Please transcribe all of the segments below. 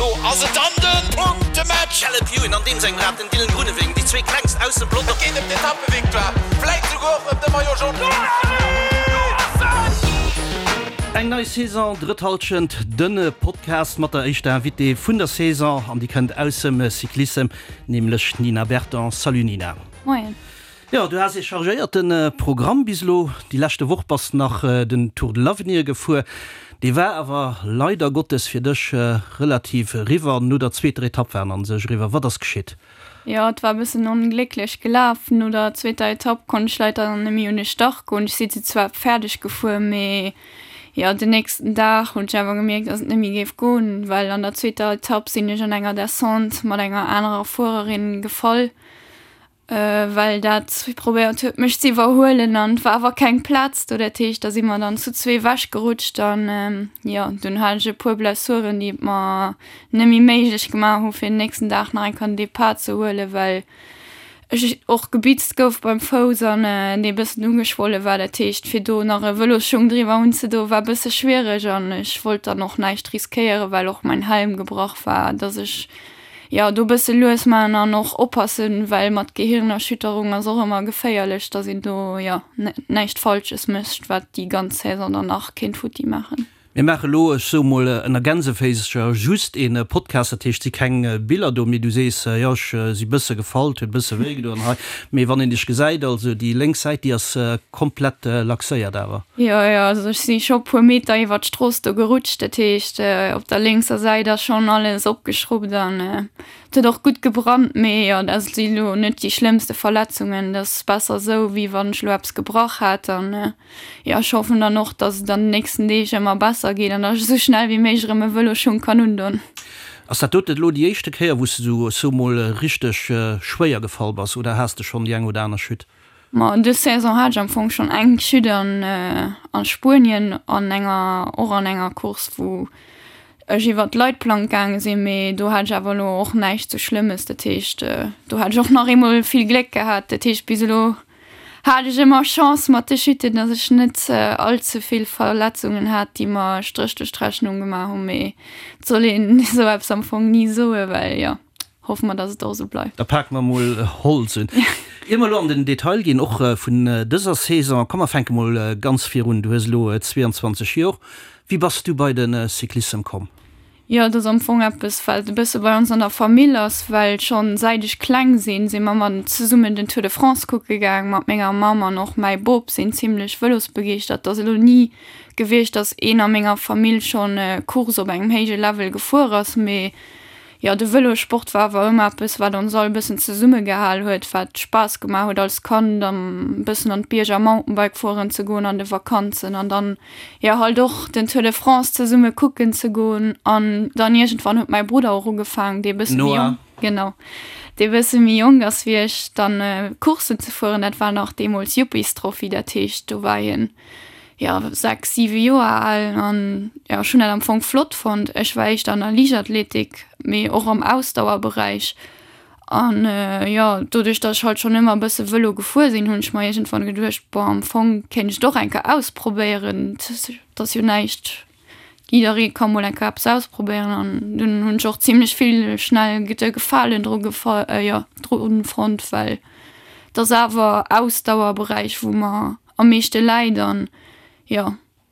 Elo ass et dann de Punktematch! Caleb Ewan an deem sengem Rad, den Dylan Groenewegen, déi zwee klengst aus dem Pelotong. Et geet ëm d'Etappevictoire, vläit souguer och ëm de Maillot Jaune. Eng nei Saison, drëtt Halschent, den Podcast mat der éischter Invitée vun der Saison an déi kënnt aussem Cyclissem, nämlech d'Nina Berton. Salut Nina. Moien. Jo, du has ee chargéierte Programm bis elo. Déi leschte Woch bass nach den Tour de l'Avenir gefuer. Dee war awer leider Gottes fir dech relativ eriwwer. No der zweeter Etapp war en an sech eriwwer. Wat ass geschitt? Jo, et war e bëssen onglécklech gelaf. No der zweeter Etapp konnt ech leider net méi un de Start goen. Ech si se zwar fäerdeg gefuer, mee jo, den nächsten Dag hunn ech awer gemierkt, dass et net méi géif goen, well an der zweeter Etapp sinn ech an enger Descente mat enger anerer Fuererin gefall. Well dat probéiert huet mech ze iwwerhuelen an et war awer keng Plaz do. Dat heescht da si mer dann zu zwee ewech gerutscht an jo dunn hat ech e puer Blessuren déi et mer net méi méiglech gemaach hu fir den nächsten Dag nach eng Kéier den Depart ze huelen, well ech och gebitzt gouf beim Fouss an dee bëssen ugeschwolle war. Dat heescht fir do nach e Vëlosschung driwwer unzedoen war e bësse schwiereg an ech wollt dann och näischt riskéieren, well och mäin Helm gebrach war, dass ech Jo, do bësse lues maachen an och oppassen, well mat Gehirnerschütterung ass och ëmmer geféierlech, dass een do, jo, näischt Falsches mécht, wat déi ganz Saison dann nach kéint futti maachen. Mir maache lo, ech soe mol ënner Gänseféisercher, just ee Podcast, dat heescht, et si keng Biller do, mee du sees, jo, ech si bësse gefall, et huet bësse wéi gedoen hei, mee wann een dech gesäit, also déi lénks Säit, déi ass komplett laxéiert awer. Jo, jo, also ech si scho puer Meter iwwer d'Strooss do gerutscht, dat heescht op der lénkser Säit ass schonn alles opgeschrubbt an et huet och gutt gebrannt, mee jo, dat si lo net déi schlëmmste Verletzungen, dat ass besser esou wéi wann ech lo eppes gebrach hätt an jo, ech hoffen dann och, dass et an den nächsten Deeg ëmmer besser geet an dass ech esou schnell wéi méiglech erëm e Vëlosschung kann undon. Ass dat dote lo déi éischte Kéier wou s de esou, ech soe mol, richteg schwéier gefall bass oder has de schonn déi eng oder aner Chute? Ma dës Saison hat ech am Fong schonn eng Chute an a Spuenien an enger och an enger Course wou ech iwwer d'Leitplank gaange sinn, mee do hat ech awer elo och näischt sou Schlëmmes. Dat heescht do hat ech och nach eemol vill Gléck gehat. Dat heescht bis elo hat ech ëmmer Chance mat de Chutten, datt ech net all ze vill Verletzungen hat, déi mer e Stréch duerch d'Rechnung gemaach hunn. Mee et soll een esou eppes am Fong ni soen, well jo. Hoffe mer, dass et och esou bleift. Da pake mer mol Holz un. Ier mer elo an den Detail ginn, och vun dëser Saison, komm mer fänke mol ganz vir un. Du hues elo 22 Jor. Wéi bass du bei de Cyclissem komm? Jo, et ass am Fong eppes, wat e bësse bei ons an der Famill ass, well schonn säit ech kleng sinn, si mer mat zesummen den Tour de France kucke gaang mat menger Mamm an och mäi Bop sinn zimlech vëlosbegeeschtert. Et ass elo ni gewiescht, dass een a menger Famill schonn Course op engem héije Level gefuer ass, mee Jo, de Vëlossport war awer ëmmer eppes, wat ons all e bëssen zesummegehal huet, wat Spaass gemaach huet als Kand, e bëssen an d'Bierger Mountainbike fueren ze goen an de Vakanzen an dann, jo, halt och den Tour de France zesumme kucken ze goen. An dann iergendwann huet mäi Brudder och ugefaangen, dee bësse méi jonk, genau, dee bësse méi jonk ass wéi ech, dann Courssen ze fueren. Dat war nach deemools Yuppies-Trophy, dat heescht, do war hien jo, 6, 7 Joer al an jo, ech hunn dat am Fong flott fonnt. Ech war éischter an der Liichtathletik, mee och am Ausdauerberäich an jo, doduerch datt ech halt schonn ëmmer e bësse Vëlo gefuer sinn, hunn ech mer iergendwann geduecht, bon, am Fong kéint ech et och eng Kéier ausprobéieren, et ass jo näischt, jidderee ka mol eng Kéier eppes ausprobéieren an dunn hunn ech och zimlech vill schnell de Gefalen dru gefa jo, dru fonnt, well et ass awer Ausdauerberäich, wou mer am meeschte läit an jo,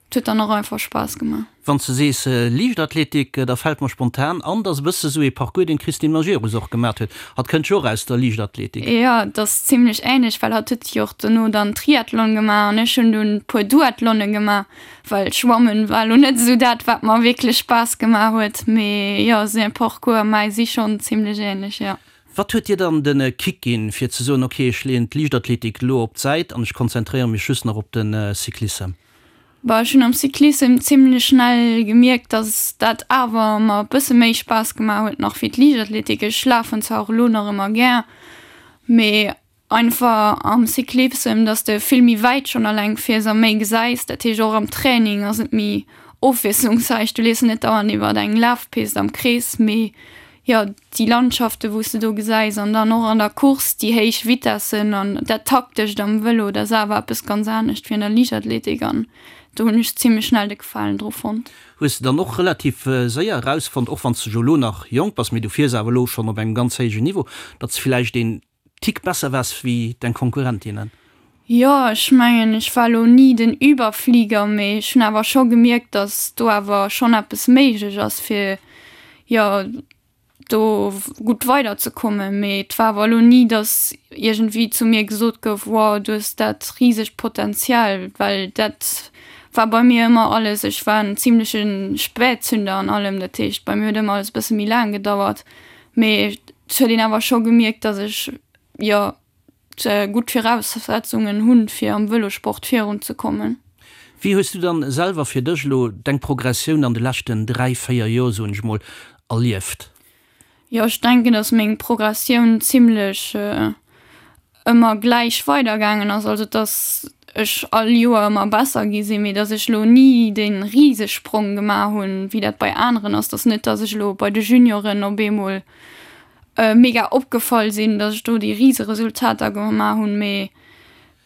et huet dann och einfach Spaass gemaach. Wann s de sees Liichtathletik, da fält mer spontan an, dass e bësse sou ee Parcours, deen d'Christine Majerus och gemat huet. Hatt kënnt jo och aus der Liichtathletik. Jo, et ass zimlech änlech, well hatt huet jo och dono dann Triathlon gemaach an ech hunn dunn puer Duathlone gemaach, well Schwammen war elo net esou dat, wat mer wierklech Spaass gemaach huet. Mee jo, säi Parcours a mäi si schonn zimlech änlech, jo. Wat huet dir dann de Kick ginn, fir ze soen, ok, ech leeën d'Liichtathletik elo op d'Säit an ech konzentréiere mech just nach op de Cyclissem? Bah, ech hunn am Cyclissem zimlech schnell gemierkt, dass dat awer mer e bësse méi Spaass gemaach huet nach wéi d'Liichtathletik. Ech lafen zwar och elo nach ëmmer gär, mee Einfach am Cyclissem, dass de vill méi wäit schonn alleng fiers a méi gesäis. Dat heescht och am Training ass et méi ofwiesslungsräich. Du leefs net dauernd iwwer eng Lafpist am Krees, mee jo déi Landschaften, wou s de do gesäis an dann och an der Course déi héich Vitessen an dat Taktescht am Vëlo, dat ass awer eppes ganz anescht wéi an der Liichtathletik an do hunn ech zimlech schnell de Gefalen dru fonnt. Hues de dann och relativ séier erausfonnt, och wann s de jo elo nach jonk bass, mee du fiers awer elo schonn op engem ganz héijen Niveau, datt s villäicht een Tick besser waars wéi deng Konkurrentinnen? Jo, ech mengen, ech war elo ni den Überflieger, mee ech hunn awer scho gemierkt, datt do awer schonn eppes méiglech ass, fir, jo, do gutt weiderzekommen. Mee et war awer elo ni, datt iergendwéi zu mir gesot gouf, wow, du hues dat risegt Potenzial, well dat war bei mir ëmmer alles, ech war en zimleche Spätzünder an allem, dat heescht, bei mir huet ëmmer alles e bësse méi laang gedauert. Mee et huet een awer scho gemierkt, datt ech, jo, gutt Viraussetzungen hunn, fir am Vëlosport virun ze kommen. Wéi hues du dann selwer fir dech elo deng Progressioun an de leschten 3, 4 Joer, soen ech mol, erlieft? Jo, ech denken, dass meng Progressioun zimlech ëmmer gläich weidergaangen ass, also dass ech all Joer ëmmer besser gi sinn, mee dass ech elo ni dee Risesprong gemaach hunn, wéi dat bei aneren ass. Dass net, dass ech elo bei de Junioren op eemol mega opgefall sinn, dass ech do déi Riseresultater gemaach hunn, mee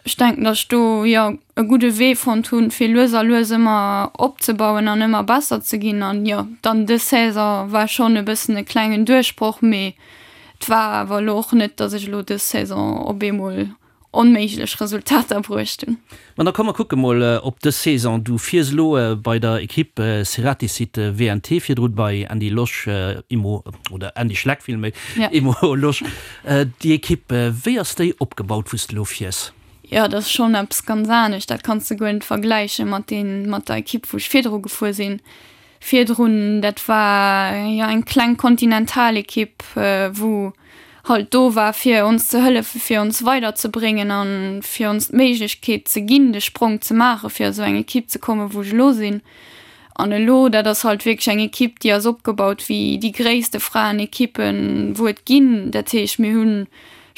ech denken, dass ech do jo e gudde Wee fonnt hunn, fir lues a lues ëmmer opzebauen an ëmmer besser ze ginn. An jo, dann dës Saison war schonn e bëssen e klengen Duerchbroch, mee et war awer elo och net, dass ech elo dës Saison op eemol onméiglech Resultater bruecht hunn. Ma da komm mer kucke mol op dës Saison. Du fiers elo bei der Ekipp Ceratizit WNT, virdrun bei Andy Losch Immo, oder Andy Schleck villméi, Immo Losch. Déi Ekipp, wéi ass déi opgebaut wou s de elo fiers? Jo, dat ass schonn eppes ganz anescht. Dat kanns de guer net vergläiche mat deen, mat der Ekipp wou ech virdru gefuer sinn. Virdrun, dat war jo eng kleng Kontinentalekipp, wou halt do war fir ons ze hëllefen, fir ons weiderzebréngen a fir ons d'Méiglechkeet ze ginn, de Sprong ze maachen, fir a sou eng Ekipp ze kommen, wou ech elo sinn. An elo, dat ass halt wierklech eng Ekipp, déi ass opgebaut wéi déi gréisste Fraenekippen, wou et ginn. Dat heescht, mir hunn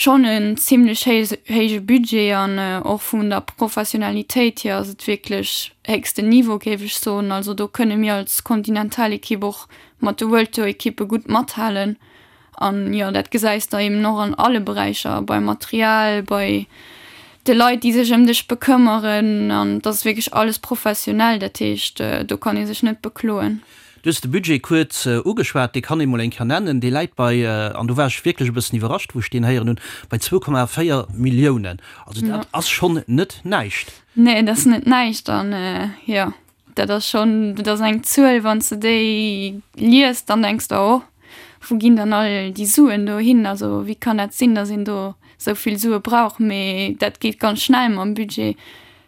schonn en zimlech héije Budget an och vun der Professionalitéit hier ass et wierklech héchsten Niveau, géif ech soen. Also do kënne mir als Kontinentalekipp och mat de World Tour Ekippe gutt mathalen. An jo, dat gesäis de eben och an alle Beräicher, beim Material, bei de Leit, déi sech ëm dech bekëmmeren. An et ass wierklech alles professionell, dat heescht, do kann ee sech net bekloen. Du hues de Budget kuerz ugeschwat, dee kann ee mol eng Kéier nennen. Dee läit bei, an do war ech wierklech e bëssen iwwerrascht, wou ech deen héieren hunn, bei 2,4 Milliounen. Also dat ass schonn net näischt. Nee, dat ass net näischt. An jo, dat ass schonn, dat ass eng Zuel, wann s de déi liest, dann denks de, oh, wou ginn dann all déi Suen do hin? Also wéi kann dat sinn, datt een do esou vill Sue brauch? Mee dat geet ganz schnell mam Budget.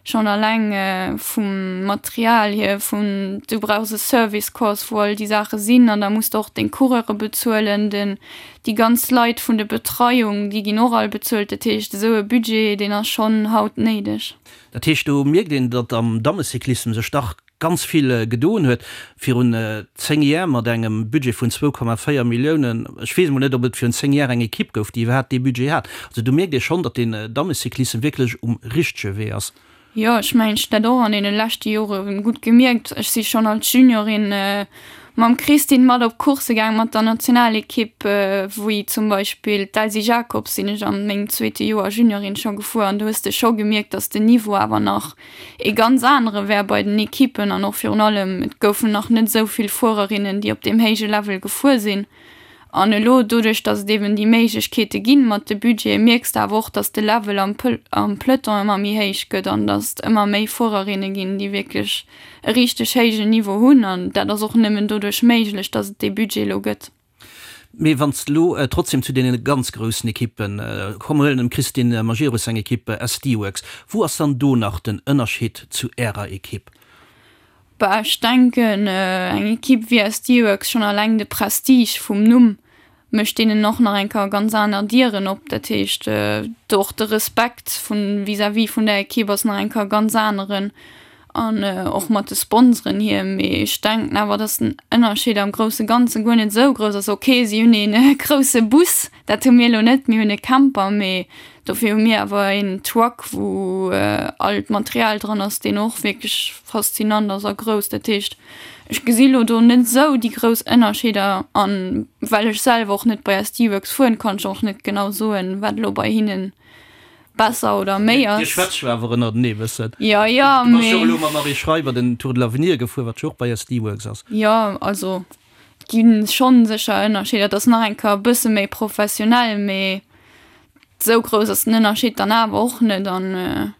Schonn alleng vum Material hier, vun du brauchs e Service Course, wou all déi Saache sinn an da muss de och deng Coureure bezuelen, den, déi ganz Leit vun de Betreiung, déi ginn och all bezuelt. Dat heescht, esou e Budget, deen ass schonn haut néideg. Dat heescht, do mierkt een, datt am Dammecyclissem sech dach ganz vill gedoen huet. Virun 10 Jär mat engem Budget vun 2,4 Milliounen, ech weess emol net, ob et virun 10 Jär eng Ekipp gouf, déi iwwerhaapt dee Budget hat. Also do mierkt ee schonn, datt den Dammecyclissem wierklech um richtege Wee ass. Jo, ech mengen, ech hunn dat och an deene leschte Jore gutt gemierkt. Ech si schonn als Juniorin mam Christine mat op Coursse gaang mat der Nationalekipp, wéi zum Beispill d'Elsy Jacobs sinn ech an mengem zweete Joer Juniorin scho gefuer an do hues de scho gemierkt, datt den Niveau awer nach ee ganz anere wär bei den Ekippen an och virun allem, et goufen nach net esou vill Fuererinnen, déi op deem héije Level gefuer sinn. An elo, doduerch datt et eben déi Méiglechkeete ginn mat de Budgete, mierks de awer och, datt de Level am am Peloton ëmmer méi héich gëtt an datt et ëmmer méi Fuererinne ginn, déi wierklech e richteg héijen Niveau hunn. An dat ass och nëmmen doduerch méiglech, datt et dee Budget elo gëtt. Mee wann s de elo trotzdem zu deene ganz groussen Ekippen, komm mer huelen dem Christine Majerus seng Ekipp SD Worx, wou ass dann do nach den Ënnerscheed zu Ärer Ekipp? Bah, ech denken, eng Ekipp wéi SD Worx, schonn alleng de Prestige vum Numm mécht deenen och nach eng Kéier ganz aner Dieren op. Dat heescht, do och de Respekt vun vis-à-vis vun der Ekipp ass nach eng Kéier ganz aneren. An och mat de Sponsoren hier. Mee ech denken awer, dass den Ënnerscheed am grousse Ganze guer net esou grouss ass. Ok, si hunn ee grousse Bus, dat hu mir elo net, mir hunn e Camper, mee dofir hu mir awer een Truck, wou all d'Material dran ass, deen och wierklech faszinant ass a grouss. Dat heescht, ech gesi lo do net esou déi grouss Ënnerscheeder. An well ech selwer och net bei SD Worx fueren, kann ech och net genau soen, wat elo bei hinnen. besser oder méi ass. Dir schwätzt jo awer ënnertenee e bëssen. Jo, jo, mee. Du bass jo och elo mam Marie Schreiber den Tour de l'Avenir gefuer, wat jo och bei SD Worx ass. Jo, also et gi schonn sécher Ënnerscheeder. Et ass nach eng Kéier e bësse méi professionell, mee esou grouss ass den Ënnerscheed dann awer och net. An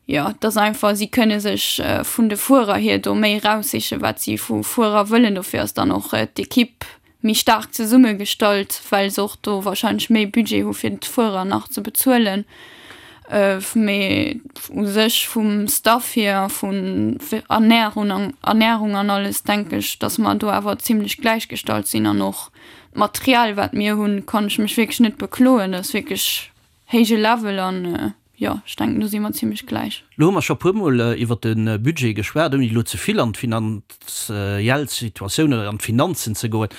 jo, et ass einfach, si kënne sech vun de Fuerer hier do méi eraussichen, wat si vu Fuerer wëllen. Dofir ass dann och d'Ekipp méi staark zesummegestallt, well se och do wahrscheinlech méi Budget hu fir d'Fuerer nach ze bezuelen. Mee u sech vum Staff hier, vun Ernährung Ernährung an alles denke ech, datt mer do awer zimlech gläichgestallt sinn an och d'Material wat mir hunn, kann ech mech wierklech net bekloen. Dat ass wierklech héije Level an jo, ech denken do si mer zimlech gläich. Lo hu mer scho puermol iwwert de Budget geschwat, ouni elo ze vill an d'finanziell Situatioun oder an d'Finanzen ze goen.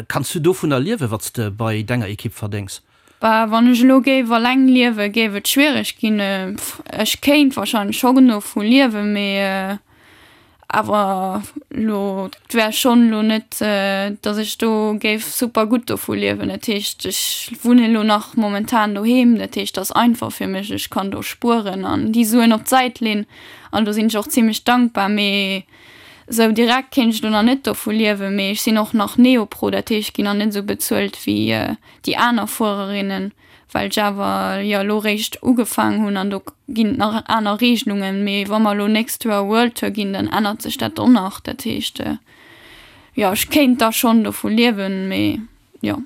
Kanns du dovunner liewen, wat s de bei denger Ekipp verdéngs? Bah, wann ech elo géif alleng liewen, géif et schwiereg ginn. Ech kéint wahrscheinlech scho genuch vu liewen, mee Awer lo, et wär schonn elo net, datt ech do géif super gutt dovu liewen. Dat heescht, ech wunnen elo nach momentan doheem, dat heescht, et ass einfach fir mech, ech kann do spueren an déi Suen op d'Säit leen an do sinn ech och zimlech dankbar. Mee esou direkt kéint ech elo nach net dovu liewen. Mee ech sinn och nach Neopro, dat heescht, ech ginn nach net esou bezuelt wéi déi aner Fuererinnen. well ech awer jo elo réischt ugefaang hunn an do ginn et nach aner Regelungen, mee wa mer elo nächst Joer World Tour ginn, dann ännert sech dat och nach. Dat heescht, jo ech kéint da schonn dovu liewen, mee jo.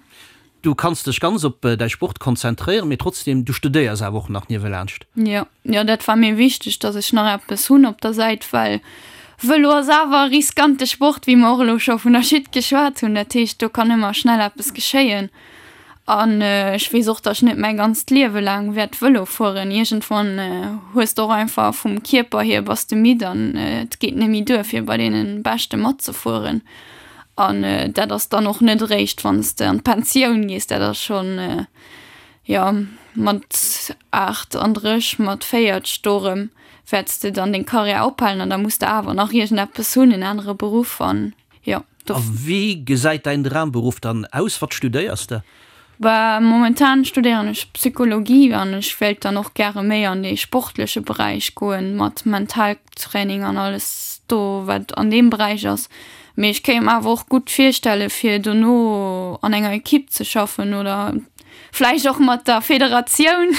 Du kanns dech ganz op däi Sport konzentréieren, mee trotzdem, du studéiers awer och nach niewelaanscht. Jo, jo dat war mir wichteg, datt ech nach eppes hunn op der Säit, well Vëlo ass awer e riskante Sport, wéi mer och elo scho vun der Chute geschwat hunn. Dat heescht, do kann ëmmer schnell eppes geschéien. An ech weess och, datt ech net mäi ganzt Liewe laang wäert Vëlo fueren. Iergendwann hues de och einfach vum Kierper hier bass de midd an et geet net méi duer fir bei deene Beschte matzefueren. An dat ass dann och net eréischt wann s de an d'Pensioun gees, dat ass schonn, jo, mat 38, mat 40 do erëm wäerts de dann deng Karriär ophalen an da muss de awer nach iergendeppes hunn, en anere Beruff an jo. A wéi gesäit däin Dramberuff dann aus? Wat studéiers de? Bah, momentan studéieren ech Psychologie an ech wéilt dann och gäre méi an dee sportleche Beräich goen, mat Mentaltraining an alles do wat an deem Beräich ass. Mee ech kéint mer awer och gutt virstelle fir dono an enger Ekipp ze schaffen oder vläicht och mat der Federatioun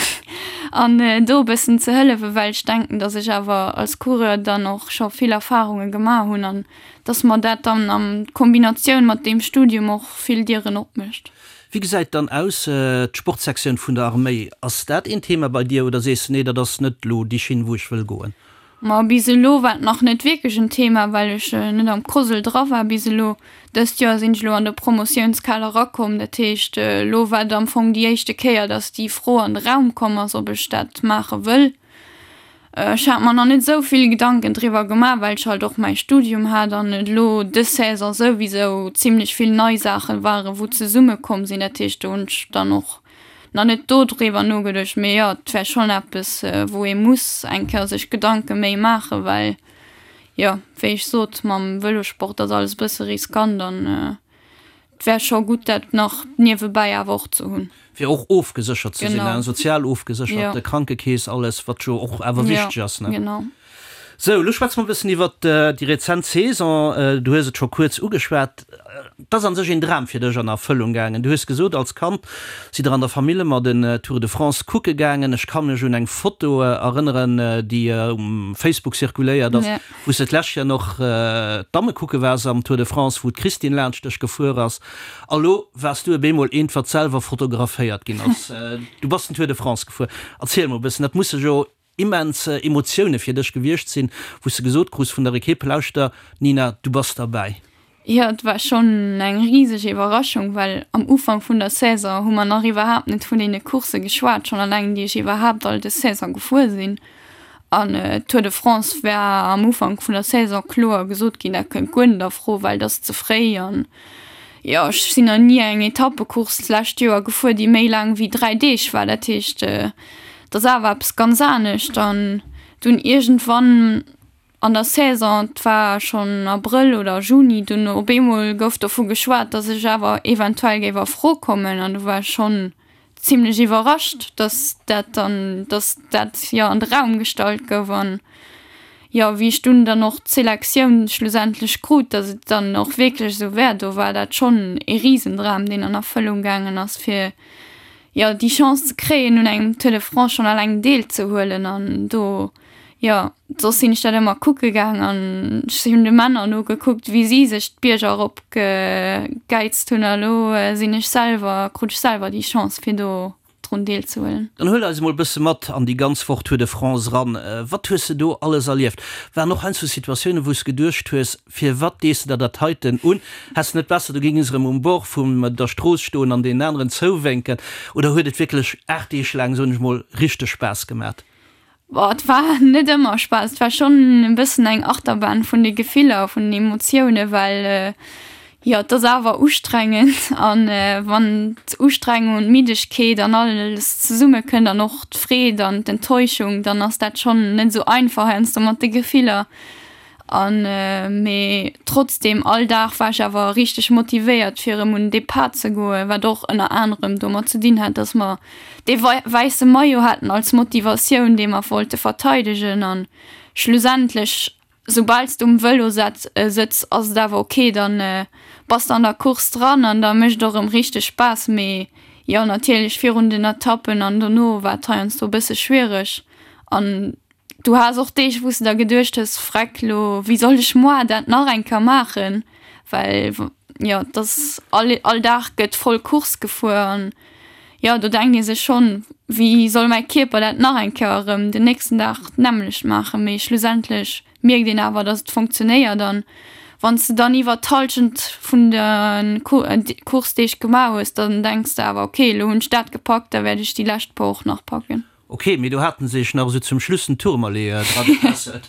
an do e bëssen ze hëllefen, well ech denken, datt ech awer als Coureur dann och scho vill Erfarunge gemaach hunn an dass mer dat dann an Kombinatioun mat deem Studium och vill Dieren opmécht. Wéi gesäit dann aus d'Sportsektioun vun der Arméi? Ass dat een Thema bei dir oder sees de nee, dat ass net elo déi Schinn wou ech wëll goen? Ma bis elo war et nach net wierklech en Thema, well ech net am COSL dra war bis elo. Dëst Joer sinn ech elo an de Promotiounskader erakomm, dat heescht elo war et am Fong déi éischte Kéier, dass déi Fro an de Raum komm ass, ob ech dat maache wëll. Ech hat mer nach net esou vill Gedanken driwwer gemaach, well ech halt och mäi Studium hat an et elo dës Saison souwisou zimlech vill nei Saachen waren, wou zesumme komm sinn. Dat heescht, do hunn ech dann och nach net do driwwer nogeduecht. Mee jo, et wär schonn eppes, wou ee muss eng Kéier sech Gedanke méi maachen, well jo, wéi ech sot, mam Vëlosport ass alles e bësse riskant an Et wär scho gutt, dat nach niewebäi awer och ze hunn. Fir och ofgeséchert ze sinn, sozial ofgeséchert, Krankekeess, alles, wat jo och awer wichteg ass. Genau. Sou, elo schwätze mer e bëssen iwwert déi rezent Saison. Du hues et scho kuerz ugeschwat. Et ass a sech een Dram fir dech an Erfëllung gaangen. Du hues gesot, als Kand sidd der an der Famill ëmmer den Tour de France kucke gaangen. Ech ka mech un eng Foto erënneren, déi um Facebook zirkuléiert ass, Wou s de d'lescht Joer noch d'Damme kucke waars am Tour de France, wou d'Christine laanscht dech gefuer ass, a lo waars du op eemol eent, wat selwer fotograféiert ginn ass. Du bass den Tour de France gefuer. Erziel mol e bëssen, dat musse jo immens Emotioune fir dech gewiescht sinn, wou s de gesot krus vun der Ekipp, Lauschter Nina, du bass derbäi. Jo, et war schonn eng riseg Iwwerraschung, well am Ufank vun der Saison hu mer nach iwwerhaapt net vun deene Coursse geschwat, schonn alleng déi ech iwwerhaapt all des Saison gefuer sinn. An Tour de France war am Ufank vun der Saison kloer gesot ginn, dat kënnt guer net a Fro, well et ass ze fréi. An jo, ech sinn nach ni eng Etappecourse d'lescht Joer gefuer, déi méi laang wéi 3 Deeg war. Dat heescht, et ass awer eppes ganz anescht. An dunn iergendwann An der Saison, et war schonn Abrëll oder Juni, dunn op eemol gouf dovu geschwat, datt ech awer eventuell géif a Fro kommen an do war ech schonn. zimlech iwwerrascht, dass dat dann, dass dat jo an de Raum gestallt gouf an jo wéi ech dunn dann och d'Selektioun schlussendlech krut, dass et dann och wierklech esou wär, do war dat schonn ee Risendram, deen an Erfëllung gaangen ass, fir jo déi Chance ze kréien un engem Tour de France schonn alleng deelzehuelen an do jo soss sinn ech dat ëmmer kucke gaang an ech hunn de Männer nogekuckt wéi si sech d'Bierger erop gegäizt hunn a lo sinn ech selwer, krut ech selwer déi Chance fir do drun deelzehuelen. Dann huel eis emol bësse mat an déi ganz Woch Tour de France eran. Wat hues de do alles erlieft? Waren och heiansdo Situatiounen wou s geduecht hues, firwat dees de der dat heiten un? Häss de net besser du géings erëm um Bord vum der Strooss stoen an deenen aneren zouwénken? Oder huet et wierklech 8 Deeg laang, soen ech mol, richteg Spaass gemat? Boah, et war net ëmmer Spaass. Et war schonn e bëssen eng Achterbahn vun de Gefiller, vun den Emotiounen, well jo, et ass awer ustrengend an wann d'Ustrengung und d'Middegkeet an alles zesumme kënnt an och d'Freed an d'Enttäuschung, dann ass dat schonn net esou einfach heiansdo mat de Gefiller. An mee trotzdem all Dag war ech awer richteg motivéiert fir erëm un den Depart ze goen, wat och ënner anerem domat ze dinn hat, dass mer dee wäisse Maillot haten als Motivatioun, dee mer wollte verteidegen. An schlussendlech, soubal s de um Vëlo sëtz, ass et awer ok, dann bass de an der Course dran an da mécht et och erëm richteg Spaass. Mee jo, natierlech virun den Etappen an dono war et heiansdo e bësse schwiereg an Du has och Deeg, wou s de der geduecht hues, Freck, lo, wéi soll ech moar dat nach eng Kéier maachen? Well, jo, et ass all, all Dag gëtt voll Course gefuer an, jo, do denkt ee sech schonn, Wéi soll mäi Kierper dat nach eng Kéier erëm den nächsten Dag d'nämmlecht maachen? Mee schlussendlech mierkt een awer, dass et funktionéiert an wann s de dann iwwer d'Hallschent vun de Course-Deeg gemaach hues, dann denks de awer, Okay, lo hunn ech dat gepackt, da wäert ech déi lescht puer och nach packen. Ok, mee do haten se sech nach esou zum Schluss den Tourmalet dra getässelt.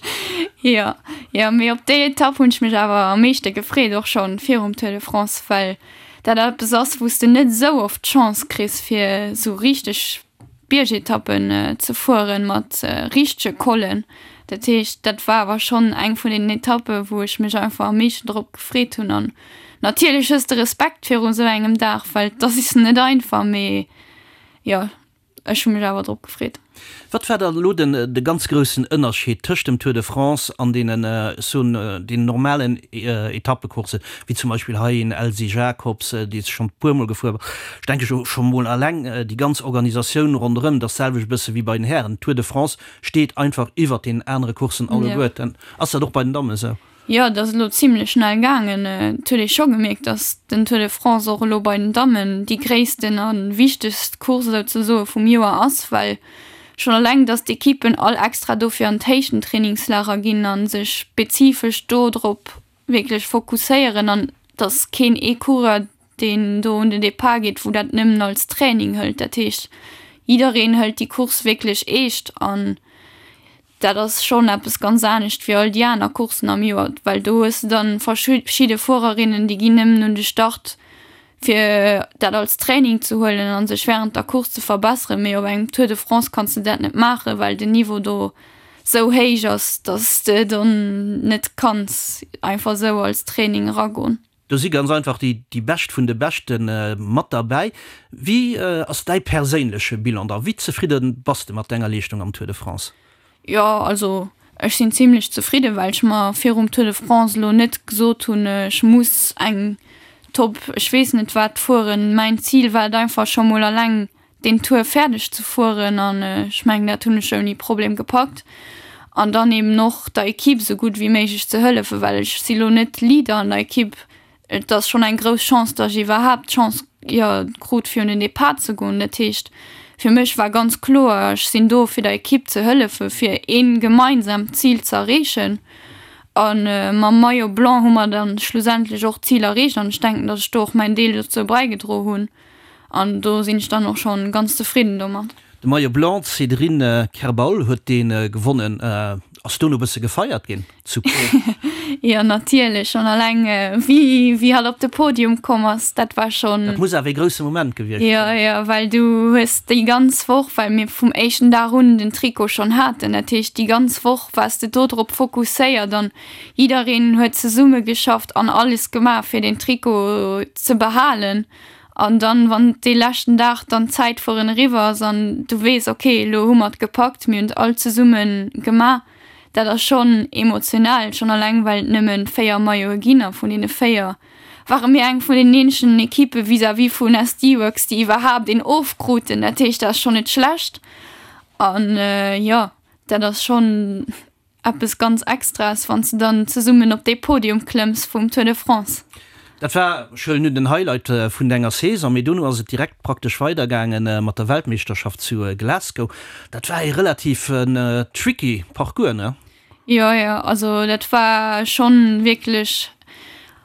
Jo, jo, mee op déi Etapp hunn ech mech awer am meeschte gefreet, och schonn virum Tour de France, well dat eppes ass, wou s de net esou oft d'Chance kriss, fir esou richteg Biergetappen ze fueren mat richtege Collen. Dat heescht, dat war awer schonn eng vun deenen Etappen, wou ech mech einfach am meeschten drop gefreet hunn. An natierlech hues de Respekt viru sou engem Dag, well et ass net einfach, mee jo. Ech hu mech awer drop gefreet. Wat war dann elo den de ganz groussen Ënnerscheed tëscht dem Tour de France an deenen, ech soen, deenen normalen Etappecourssen, wéi zum Beispill hei een Elsy Jacobs, dee s schonn e puermol gefuer ass? Ech denke jo scho mol alleng déi ganz Organisatioun ronderëm, dat ass d'selwecht e bësse wéi bei den Hären. Tour de France steet einfach iwwert deenen anere Courssen alleguerten. Ass dat och bei den Dammen esou? Jo, et ass elo zimlech schnell gaangen. Et huet ee scho gemierkt, datt den Tour de France och elo bei den Dammen déi gréissten a wichtegst Course souzesoe vum Joer ass, well schonn eleng, datt d'Ekippen all extra dofir an d'Héichtentrainingslager ginn a sech spezifesch do drop wierklech fokusséieren an datt keen ee Coureur, deen do un den Depart geet, wou dat nëmmen als Training hëlt. Dat heescht, jiddereen hëlt déi Course wierklech eescht an Dat ass schonn eppes ganz anescht wéi all déi aner Courssen am Joer, well do hues de dann verschidde Fuererinnen, déi ginn nëmmen un de Start fir dat als Training ze huelen an sech wärend der Course ze verbesseren, mee op engem Tour de France kanns de dat net maachen, well den Niveau do sou héich ass, dass de dann net kanns einfach sou als Training eragoen. Do si ganz einfach déi déi Bescht vun de Beschte mat derbäi. Wéi ass däi perséinleche Bilan da? Wéi zefridde bass de mat denger Leeschtung am Tour de France? Jo, also ech sinn zimlech zefridde well ech mer virum Tour de France elo net gesot hunn, ech muss eng Top ech weess net wat fueren. Mäin Zil war et einfach scho mol alleng deen Tour fäerdeg ze fueren an ech mengen dat hunn ech ouni Problem gepackt an dann eben och der Equipe esou gutt wéi méiglech ze hëllefen, well ech si lo net Leader an der Equipe. Et ass schonn eng grouss Chance, datt ech iwwerhaapt d'Chance, jo, krut fir un den Depart ze goen. Dat heescht fir mech war ganz kloer, ech sinn do fir der Equipe ze hëllefen, fir ee gemeinsamt Zil ze erreechen a mam Maillot blanc hu mer dann schlussendlech och d'Zil erreecht an ech denken, datt ech do och mäin Deel dozou bäigedro hunn. An do sinn ech dann och schonn ganz zefridden domat. De Maillot Blanc, d'Cédrine Kerbaol huet dee gewonnen. Ass dono e bësse gefeiert ginn zu Pau? Jo natierlech, schonn alleng wéi wéi hatt op de Podium komm ass, dat war schonn. Dat muss awer ee grousse Moment gewiescht sinn. Jo jo, well du hues déi ganz Woch, well mir vum éischten Dag un den Trikot schonn haten, dat heescht déi ganz Woch waars de do drop fokusséiert an jiddereen huet zesumme geschafft an alles gemaach fir deen Trikot ze behalen. An dann, wann dee leschten Dag dann d'Zäitfueren eriwwer ass an du weess, okay, elo hu mer et gepackt, mir hunn et all zesumme gemaach, dat ass schonn emotional, schonn alleng well et nëmme 4 Maillote ginn a vun deene 4 ware mir eng vun den eenzegen Ekippe vis-à-vis vun SD Worx, déi iwwerhaapt een ofkruten. Dat heescht, dat ass schonn net schlecht an jo, dat ass schonn Eppes ganz Extraes, wann s de dann zesummen op dee Podium klëmms vum Tour de France. Dat war, ech huelen un, den Highlight vun denger Saison, mee dono ass et direkt praktesch weidergaange mat der Weltmeeschterschaft zu Glasgow. Dat war ee relativ tricky Parcours, ne? Jo, jo, also dat war schonn wierklech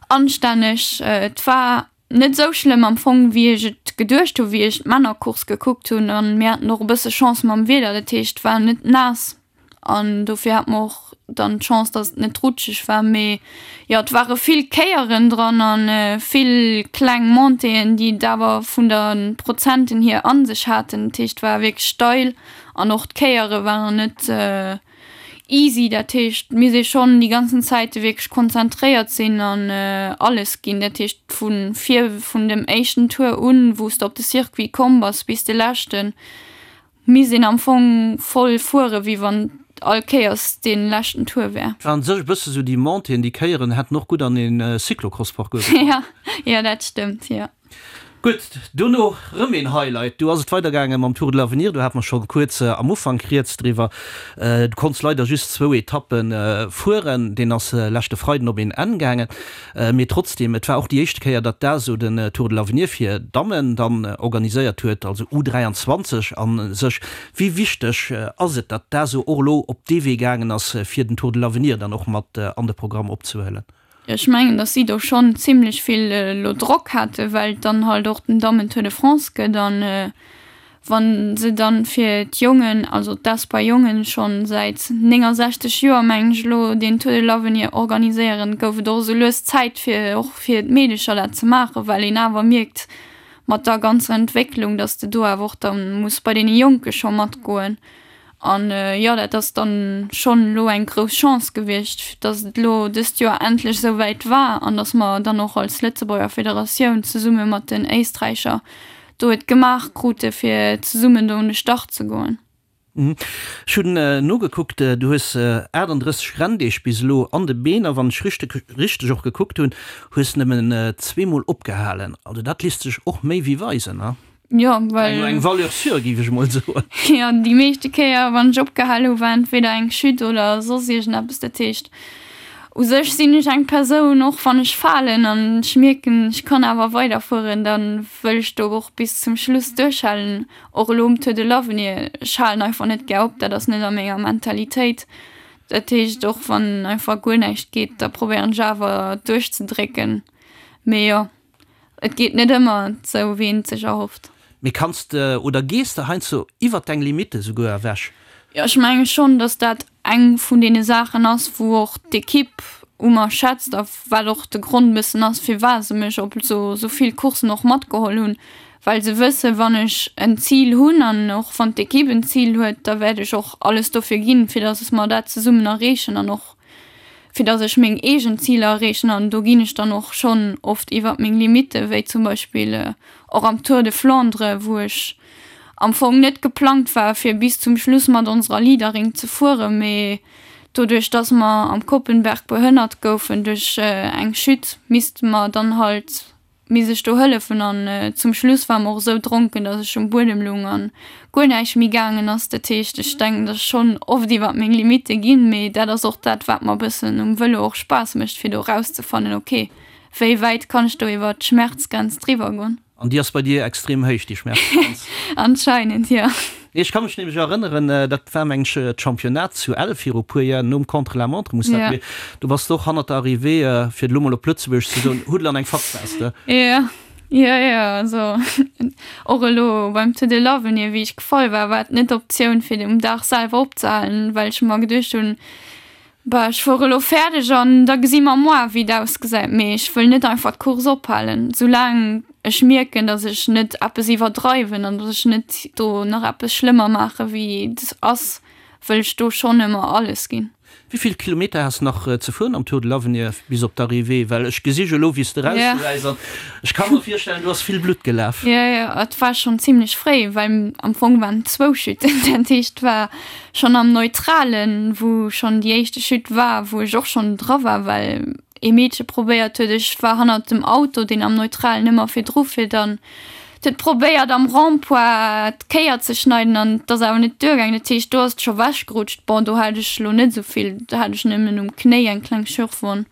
anstänneg. Et war net esou schlëmm am Fong wéi ech et geduecht hu wéi ech d'Männercourse gekuckt hunn an mir haten och e bësse Chance mam Wieder, dat heescht et war net naass an dofir hat mer och dann d'Chance dass et net rutscheg war, mee jo et ware vill Kéieren dran an vill kleng Montéeën déi et awer vun der Prozenten hier an sech haten, dat heescht et war wierklech steil an och d'Kéiere waren net Easy, dat heescht mir si schonn déi ganzen Zäite wierklech konzentréiert sinn an alles ginn. Dat heescht vu vir vun dem éischten Tour un, wou s de op de Circuit komm bass, bis de leschten, misst een am Fong voll fuere wéi wann all Kéiers dee leschten Tour wär. Et waren sech e bësse sou déi Montéeën, déi Kéieren hätten och gutt an een Cyclocross-Parcours gepasst. Jo, jo dat stëmmt, jo. Gutt, dono rëm een Highlight. Do ass et weidergaange mam Tour de l'Avenir. Do hate mer scho kuerz am Ufank rieds driwwer. Du konns leider just zwou Etappe fueren. Deen ass leschte Freiden op een Enn gaangen. Mee trotzdeem, et war och déi éischte Kéier, datt d'ASO den Tour de l'Avenir fir Dammen dann organiséiert huet, also U23 a sech. Wéi wichteg ass et, datt d'ASO och elo op dee Wee gaangen ass, fir den Tour de l'Avenir dann och mat an de Programm opzehuelen? Ech mengen, datt si do schonn zimlech vill elo Drock hate well et dann halt och den Dammen Tour de France gëtt an wa se dann fir d'Jongen, also d'Espoir Jongen schonn säit 69 Joer mengen ech elo deen Tour de l'Avenir organiséieren, gouf et och esou lues Zäit fir och fir d'Meedecher dat ze maachen, well een awer mierkt mat der ganzer Entwécklung, datt de do awer och da muss bei deene Jonke scho matgoen. An jo, dat ass dann schonn elo eng grouss Chance gewiescht, dass et elo dëst Joer endlech esou wäit war an dass mer dann och als Lëtzebuerger Federatioun zesumme mat den Éisträicher do et gemaach krute fir zesummen do un de Start ze goen. Ech hunn nogekuckt, du hues 38 Renndeeg bis elo an de Been a wann ech richteg och gekuckt hunn, hues nëmmen zweemol opgehalen. Also dat lisst sech och méi wéi weisen, ne? Jo, well. Eng Valeur sûre, géif ech emol soen. Jo, déi meeschte Kéier, wann ech opgehal hu, war entweder eng Chute oder soss iergendeppes. Dat heescht, u sech sinn ech eng Persoun, och wann ech falen an ech mierken, ech kann awer weiderfueren, da wëll ech do och bis zum Schluss duerchhalen. Och elo um Tour de l'Avenir, ech halen einfach net gär op, dat ass net a menger Mentalitéit. Dat heescht, och wann einfach guer näischt geet, da probéieren ech awer duerchzedrécken. Mee jo. Et geet net ëmmer sou wéi een et sech erhofft. Mee kanns de oder gees de heiansdo iwwert deng Limitte souguer ewech? Jo, ech menge schonn, datt dat eng vun deene Saachen ass, wou och d'Ekipp u mer schätzt a wat och de Grond e bëssen ass, firwat se mech op esou vill Courssen och matgeholl hunn, well se wëssen, wann ech en Zil hunn an och wann d'Ekipp en Zil huet, da wäert ech och alles dofir ginn, fir datt mer dat zesummen erreechen an och fir dass ech meng eegen Ziler erreechen an do ginn ech dann och schonn oft iwwert meng Limitte, wéi zum Beispill och am Tour de Flandre, wou ech am Fong net geplangt war fir bis zum Schluss mat onserer Leaderin ze fueren, mee doduerch dass mer am Koppenberg behënnert goufen duerch eng Chute, misste mer dann halt Misst ech do hëllefen an zum Schluss war mer och esou dronken, dass ech um Buedem lung an guer näischt méi gaangen ass. Dat heescht, ech denken, dass ech schonn oft iwwert meng Limitte ginn, mee dat ass och dat, wat mer e bëssen um Vëlo och Spaass mécht, fir do erauszefannen, ok, wéi wäit kann ech do iwwert d'Schmerzgrenz driwwer goen. An déi ass bei dir extrem héich, déi Schmerzgrenz? Anscheinend, jo. Nee, ech ka mech nämlech erënneren, dat war meng ech d'Championnat zu Ell viru puer Jar, nom Contre-la-montre muss dat gewiescht, do bass de och hannert der Arrivée, fir et elo mol op Lëtzebuergesch ze soen, Huddel an eng Fatz waars de. Jo, jo, jo, also och elo beim Tour de l'Avenir, wéi ech gefall war, war et net d'Optioun fir um Dag selwer opzehalen, well ech mer geduecht hunn, Bah, ech fuere lo fäerdeg an da gesi mer moar wéi et ausgesäit, mee ech wëll net einfach d'Course ophalen, soulaang ech mierken, datt ech net eppes iwwerdreiwen an datt ech net do nach eppes schlëmmer maache wéi et ass, wëll ech do schonn ëmmer alles ginn. Wéi vill Kilometer has nach ze fueren am Tour de l'Avenir bis op d'Arrivée? Well ech gesi jo elo wéi s de erausgesäis an ech ka mer virstellen, do ass vill Blutt gelaf. Jo, jo, et war schonn zimlech fréi, well am Fong waren et zwou Chuten. Dat heescht, et war schonn am Neutralen, wou schonn déi éischte Chute war, wou ech och schonn dra war, well ee Meedche probéiert huet, ech war hannert dem Auto, deen am Neutralen ëmmer virdru fiert an huet probéiert am Rond-point d'Kéier ze schneiden an et ass awer net duergaangen. Dat heescht, do ass et scho wechgerutscht. Bon, do hat ech elo net esou vill, do hat ech nëmmen um Knéi eng kleng Schürfwonn.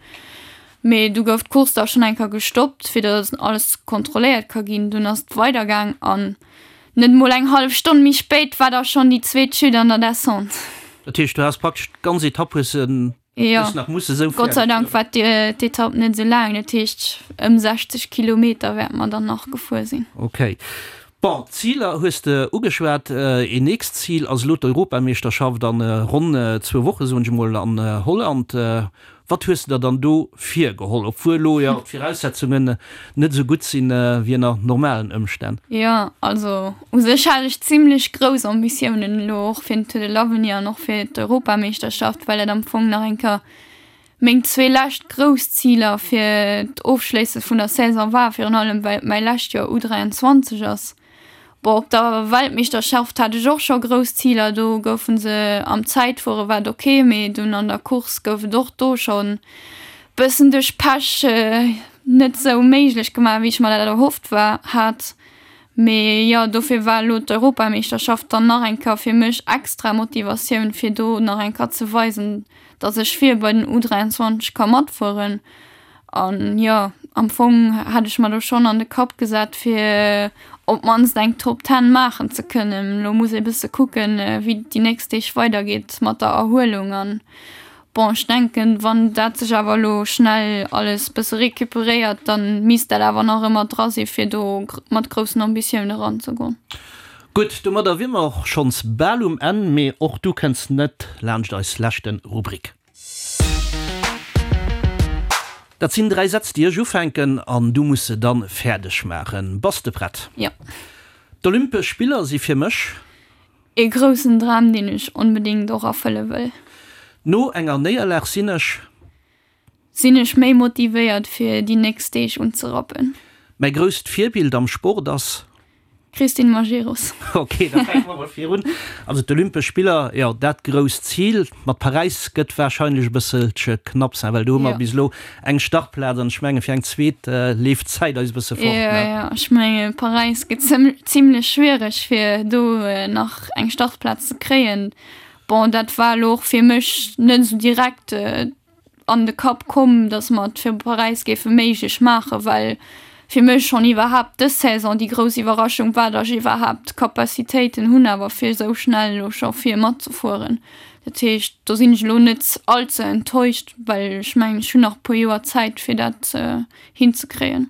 Mee du gouf d'Course da schonn eng Kéier gestoppt, fir datt alles kontrolléiert ka ginn. Dunn ass et weidergaang an net emol eng hallef Stonn méi spéit war da schonn déi zweet Chute an der Descente. Dat heescht, du has praktesch d'ganz Etapp hues de Jo, Gott sei Dank war d'Etapp net esou laang, dat heescht ëm 60 Kilometer wäerte mer dann nach gefuer sinn. Ok. Bon, d'Ziler hues de ugeschwat. Een nächst Zil ass elo d'Europameeschterschaft an ronn zwou Woche, soen ech emol, an Holland. Wat hues de der dann do virgeholl, obwuel elo jo d'Viraussetzungen net esou gutt sinn wéi ënner normalen Ëmstänn? Jo, also u sech hat ech zimlech grouss Ambitiounen elo och fir den Tour de l'Avenir an och fir d'Europameeschterschaft, well et am Fong nach eng Kéier meng zwee lescht grouss Ziler fir d'Ofschléisse vun der Saison war, virun allem well et mäi lescht Joer U23 ass. Bon, op der Weltmeeschterschaft hat ech och scho grouss Ziler, do goufe se am Zäitfuere war et ok, mee dunn an der Course gouf et och do schonn bëssen duerch Pech net sou méiglech gemaach, wéi ech mer dat erhofft war hat. Mee jo, dofir war elo d'Europameeschterschaft dann nach eng Kéier fir mech extra Motivatioun, fir do nach eng Kéier ze weisen, dass ech vir bei den U23 ka matfueren. An jo, am Fong hat ech mer do schonn an de Kapp gesat, fir op d'mannst eng Top Ten maachen ze kënnen. Elo muss ee bësse kucken, wéi et déi nächst Deeg weidergeet mat der Erhuelung. An bon, ech denken, wann dat sech awer elo schnell alles bësse recuperéiert, da misst dat awer nach ëmmer dra si fir do mat groussen Ambitioune eranzegoen. Gutt, domadder wier mer och schonns bal um Enn, mee och du kënns net laanscht eis leschte Rubrik. Dat sinn 3 Sätz déi ech ufänken an du muss se dann fäerdeg maachen. Bass de prett? Jo. D'Olympesch Spiller si fir mech. Ee groussen Dram deen ech onbedéngt och erfëlle wëll. No enger Néierlag sinn ech. Sinn ech méi motivéiert fir déi nächst Deeg unzerappen. Mäi grousst Virbild am Sport ass. Christine Majerus. Ok, da fänke mer mol virun. Also d'Olympesch Spiller, jo, dat grousst Zil. Mat Paräis gëtt warscheinlech e bësselche knapp sein, well do hu mer bis elo eng Startplaz an ech menge fir eng zweet leeft d'Zäit eis e bësse fort, ne? Jo, jo, ech menge Paräis gëtt zimlech schwiereg fir do nach eng Startplaz ze kréien. Bon, dat war elo och fir mech net esou direkt an de Kapp komm, datt mer et fir Paräis géife méiglech maachen, well fir mech schonn iwwerhaapt dës Saison déi grouss Iwwerraschung war, datt ech iwwerhaapt d'Capacitéiten hunn awer fir esou schnell elo scho vir matzefueren. Dat heescht, do sinn ech elo net all ze enttäuscht, well ech mengen, ech hunn nach e puer Joer Zäit fir dat hinzekréien.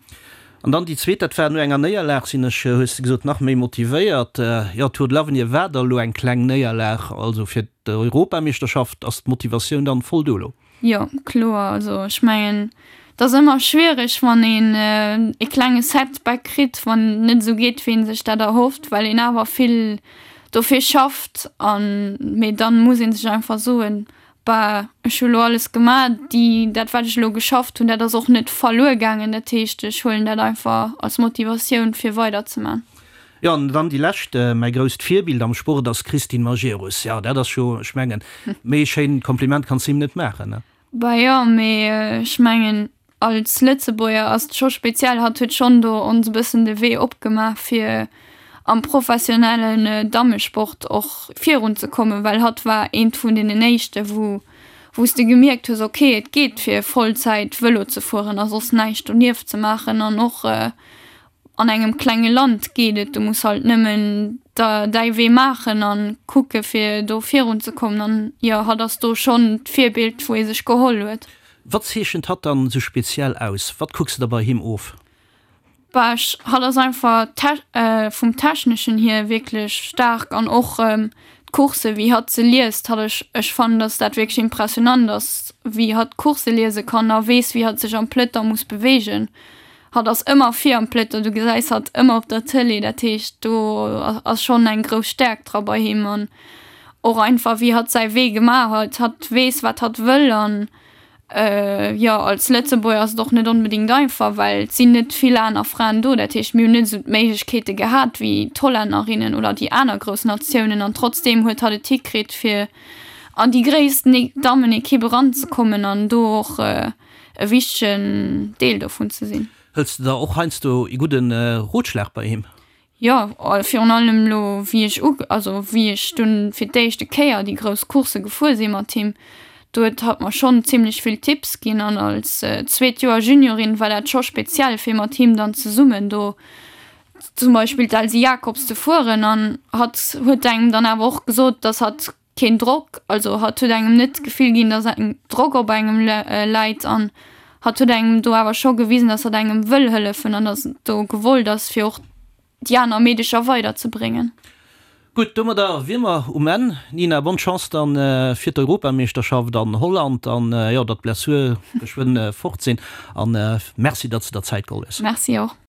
An dann déi zweet, dat war no enger Néierlag sinn ech, hues de gesot, nach méi motivéiert. Jo, Tour de l'Avenir war da elo eng kleng Néierlag, also fir d'Europameeschterschaft ass d'Motivatioun dann voll do elo? Jo, kloer. Also ech mengen, et ass ëmmer schwiereg, wann een e klenge Setback kritt, wann et net esou geet, wéi ee sech dat erhofft, well een awer vill dofir schafft. An, mee dann muss ee sech einfach soen, Bah, ech hu lo alles gemaach, déi, dat wat ech elo geschafft hunn, dat ass och net verluer gaangen. Dat heescht, ech huelen dat einfach als Motivatioun fir weider ze man. Jo, an dann déi lescht, Mäi grousst Virbild am Sport ass d'Christine Majerus. Jo, dat ass jo, ech mengen, méi e schéint Kompliment kanns de him net maachen, ne? Bah jo, mee ech mengen, Als Lëtzebuerger ass et scho speziell, hatt huet schonn do ons e bëssen de Wee opgemaach fir am professionellen Dammesport och virun ze kommen, well hatt war eent vun deenen éischte wou wou s de gemierkt hues, ok et geet fir Vollzäit Vëlo ze fueren a soss näischt donieft ze maachen an och an engem klenge Land geet et, du muss halt nëmmen der däi Wee maachen an kucke fir do virun ze kommen an jo hatt ass do schonn d'Virbild wou ee sech geholl huet. Wat zeechent hatt dann esou speziell aus? Wat kucks de der bei him of? Bah ech, hatt ass einfach vum techneschen hier wierklech staark an och d'Coursse wéi hatt se liest, hatt ech ech fannen dass dat wierklech impressionant ass wéi hatt d'Coursse liese kann a weess wéi hatt sech am Peloton muss beweegen. Hatt ass ëmmer vir am Peloton, du gesäis hatt ëmmer op der Tëlee, dat heescht do ass schonn eng grouss Stäerkt dra bei him an. Och einfach wéi hatt säi Wee gemaach huet, hatt weess wat hatt wëll an jo als Lëtzebuerger ass et och net onbedéngt einfach, well et sinn net vill aner Fraen do, dat heescht mir hunn net esou d'Méiglechkeete gehat wéi d'Hollännerinnen oder déi aner grouss Natiounen an trotzdeem huet hatt et hikritt fir an déi gréissten Dammenekipp eranzekommen an do och e wichtegen Deel dovun ze sinn. Hëls de der och heiansdo ee gudde Rotschlag bei him? Jo, virun allem elo wéi ech u, also wéi ech dunn fir d'éischte Kéier déi grouss Coursse gefuer si mat him, do huet hatt mer schonn zimlech vill Tipps ginn an als zweet Joer Juniorin war dat scho speziell fir mat him dann zesummen do zum Beispill d'Elsy Jacobs ze fueren an hatt huet engem dann awer och gesot, dass hatt keen Drock, also hatt huet engem net d'Gefill ginn, dass eng Drock op engem läit an hatt huet engem do awer scho gewisen, dass hatt engem wëll hëllefen an dass et do gewollt ass, fir och déi aner Meedecher weiderzebréngen. Gutt, domadder wier mer um Enn. Nina, bonne Chance dann fir d'Europameeschterschaft an Holland an jo, datt d'Blessure geschwënn fort sinn an merci, datt s de der Zäit geholl hues. Merci och.